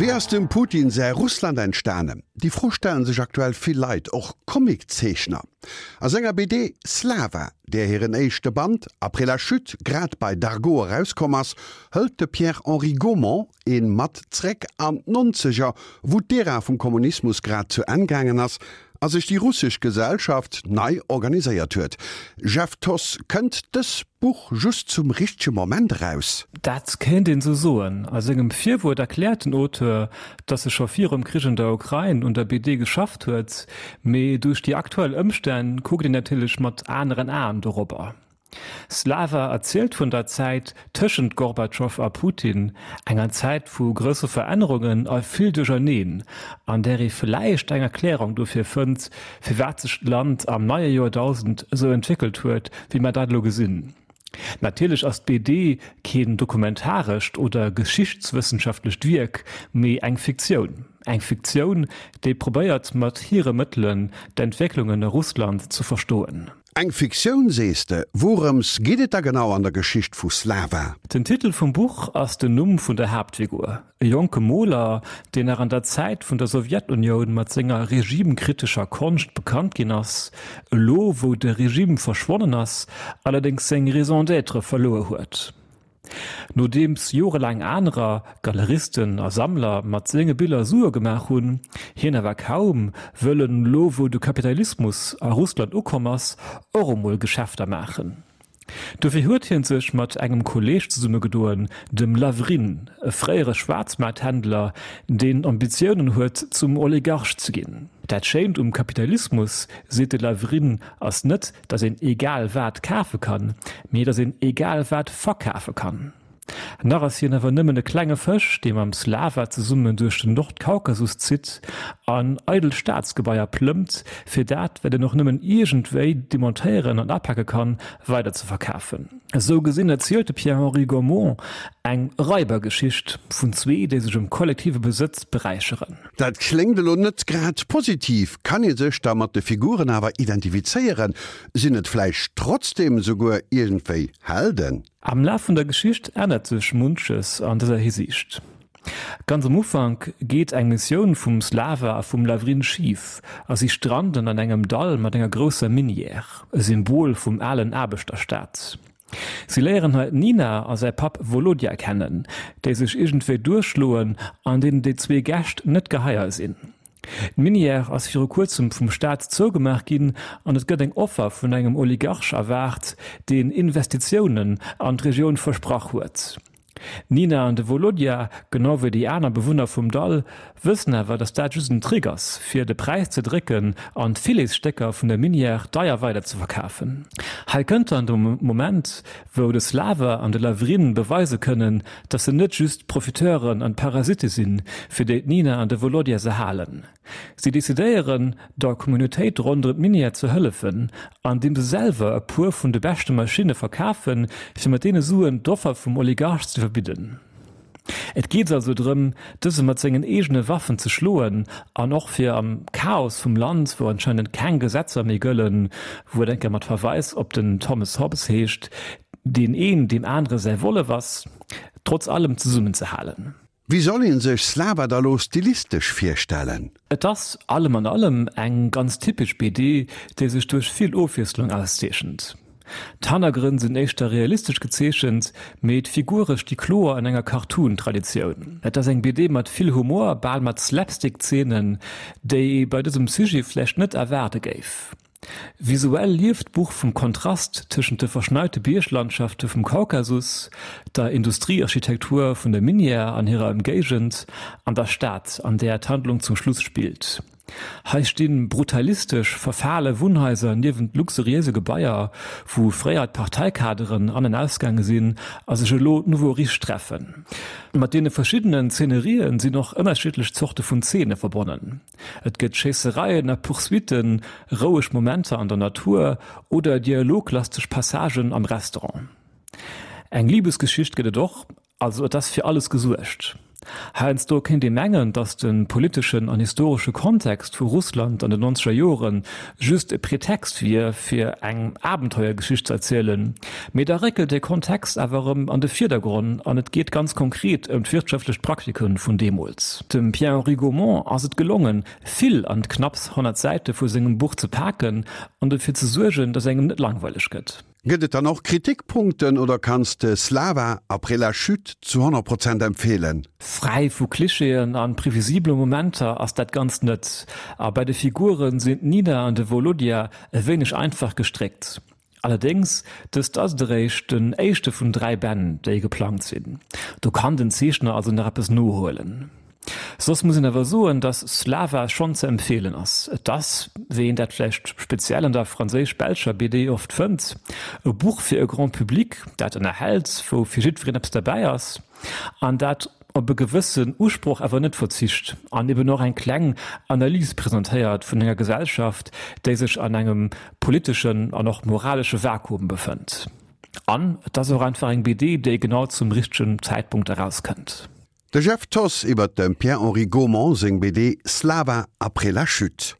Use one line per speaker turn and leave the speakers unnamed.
Wéi ass dem Putin säi Russland entstanen? Déi Fro stellen sech aktuell vill Leit, och Comiczeechner. A senger BD Slava, där hiren éischte Band Après la chute grad bei Dargaud erauskomm ass, hëlt de Pierre-Henri Gaumont een mat zréck an d'Nonzeger, wou d'Ära vum Kommunismus grad zu Enn gaangen ass a sech déi russesch Gesellschaft nei organiséiert huet. Jeff Thoss, kënnt dës Buch just zum richtege Moment eraus?
Dat kéint een esou soen. A sengem Virwuert erkläert den Auteur, datt e scho virum Krich an der Ukrain un der BD geschafft huet, mee duerch déi aktuell Ëmstänn kuckt een natierlech mat aneren Aen dorobber. Slava erzielt vun der Zäit tëschent Gorbatschow a Putin, enger Zäit vu grousse Verännerungen a vill Duercherneen, an där ee vläicht eng Erklärung dofir fënnt, firwat sech d'Land am neie Joerdausend esou entwéckelt huet, wéi mer dat elo gesinn. Natierlech ass d'BD keen dokumentarescht oder geschichtswëssenschaftlecht Wierk, mee eng Fiktioun. Eng Fiktioun, déi probéiert mat hire Mëttelen d'Entwécklungen a Russland ze verstoen.
Eng Fiktioun sees de? Wourëms geet et da genau an der Geschicht vu Slava?
Den Titel vum Buch ass den Numm vun der Haaptfigur, e jonke Moler, deen nach an der Zäit vun der Sowjetunioun mat senger regimekritescher Konscht bekannt ginn ass, elo wou de Regime verschwonnen ass, allerdéngs seng Raison d'être verluer huet. Nodeems jorelaang anerer, Galeristen a Sammler, mat senge Biller Sue gemaach hunn, hien awer kaum, wëll en, elo wou de Kapitalismus a Russland ukomm ass, och emol Geschäfter maachen. Dofir huet hien sech mat engem Kolleeg zesummegedoen, dem Lavrin, e fréiere Schwaarzmaarthändler, deen Ambitiounen huet zum Oligarch ze ginn. Dat Schéint um Kapitalismus, seet de Lavrin, ass net, datt een egal wat kafe kann, mee datt een egal wat verkafe kann. Nach ass hien awer nëmmen e klenge Fësch, dee mam Slava zesummen duerch den Nordkaukasus zitt an eidel Staatsgebaier plëmmt, fir dat, wat een och nëmmen iergendwéi demontéieren an apake kann, weider ze verkafen. Esou gesinn erzielt de Pierre-Henri Gaumont eng Raibergeschicht vun zwee, déi sech um kollektive Besëtz beräicheren.
Dat kléngt elo net grad positiv. Kann ee sech da mat de Figuren awer identifizéieren? Sinn et vläicht trotzdem souguer iergendwéi Helden?
Am Laf vun der Geschicht ännert sech munches an dëser Hisiicht. Ganz am Ufank geet eng Missioun vum Slava a vum Lavrin schif a si stranden an engem Dall mat enger grousser Minière, e Symbol vum alen Aarbechterstaat. Si léieren hei d'Nina a säi Papp Volodja kennen, déi sech iergendwéi duerchschloen an deenen déi zwee Gäscht net geheier sinn. D'Minière ass viru kuerzem vum Staat zougemaach ginn an et gëtt eng Offer vun engem Oligarch erwaart, deen Investitiounen an d'Regioun versprach huet. D'Nina an de Volodja, genau wéi déi aner Bewunner vum Dall, wëssen awer, datt dat just en Trick ass, fir de Präis ze drécken an d'Filetstécker vun der Minière deier weider ze verkafen. Hei kënnt dann de Moment, wou de Slava an de Lavrin beweise kënnen, datt se net just Profiteuren an Parasitte sinn, fir déi d'Nina an de Volodja se halen. Si decidéieren, der Communautéit ronderëm d'Minière ze hëllefen, andeem se selwer e puer vun de beschte Maschinne verkafen, fir mat deene Suen d'Offer vum Oligarch ze iwwerbidden. Et geet also drëm, dëse mat sengen eegene Waffen ze schloen an och fir am Chaos vum Land, wou anscheinend keng Gesetzer méi gëllen, wou et eng Kéier mat Verweis op den Thomas Hobbes heescht, deen een deem anere säi Wollef ass, trotz allem zesummenzehalen.
Wéi soll een sech Slava da lo stilistesch virstellen?
Et ass allem an allem eng ganz typesch BD, déi sech duerch vill Ofwiesslung auszeechent. D'Hannergrënn sinn éischter realistesch gezeechent, mee d'Figure sti kloer an enger Cartoon-Traditioun. Et ass eng BD mat vill Humor, bal mat Slapstick-Zeenen, déi ee bei dësem Sujet vläicht net erwaarde géif. Visuell lieft d'Buch vum Kontrast tëschent de verschneite Bierglandschafte vum Kaukasus, der Industriearchitektur vun der Minière an hirer Ëmgéigend an der Stad, an där d'Handlung zum Schluss spillt. Hei sti brutalistesch verfale Wunnhaiser niewent luxuriéise Gebaier, wou fréier d'Parteikaderen an an ausgaange sinn a sech elo d'Nouveaux riches treffen. Mat deene verschiddenen Zeenerien sinn och ënnerschiddlech Zorte vun Zeene verbonnen. Et gëtt Schéissereien a Poursuitten, roueg Momenter an der Natur oder dialoglasteg Passagen am Restaurant. Eng Libesgeschicht gëtt et och, also et ass fir alles gesuergt. Heiansdo kéint ee mengen, datt de politeschen an historesche Kontext vu Russland an den nonzeger Jore just e Pretext wier, fir eng Abenteuergeschicht ze erzielen, mee da réckelt dee Kontext awer erëm an de Virdergronn an et geet ganz konkret ëm d'wirtschaftlech Praktike vun deemools. Dem Pierre-Henri Gaumont ass et gelongen, vill an d'knapps 100 Säite vu sengem Buch ze paken an dofir ze suergen, datt engem net langweileg gëtt.
Gëtt et dann och Kritikpunkten oder kanns de Slava après la chute zu 100 Prozent empfeelen?
Fräi vu Klischeeën an previsibele Momenter ass dat Ganzt net, a bei de Figuren sinn d'Nina an de Volodya e wéineg einfach gestréckt. Allerdéngs, dëst ass et eréischt den éischte vun 3 Bänn, déi geplangt sinn. Do kann den Zeechner also nach eppes nohuelen. Soss muss een awer soen, dass Slava schonn ze empfeelen ass. Et ass, wéi een dat vläicht speziell an der franséisch-belscher BD oft fënnt, e Buch fir e Grand Public, dat ënnerhält, wou fir jiddwereen eppes derbäi ass an dat op e gewëssen Usproch awer net verzicht an eben och eng kleng Analys presentéiert vun enger Gesellschaft, déi sech an engem politeschen an och moralesche Vakuum befënnt. An et ass och einfach eng BD, déi genau zum richtegen Zäitpunkt erauskënnt.
De Jeff Thoss iwwer dem Pierre-Henri Gaumont seng BD Slava après la chute.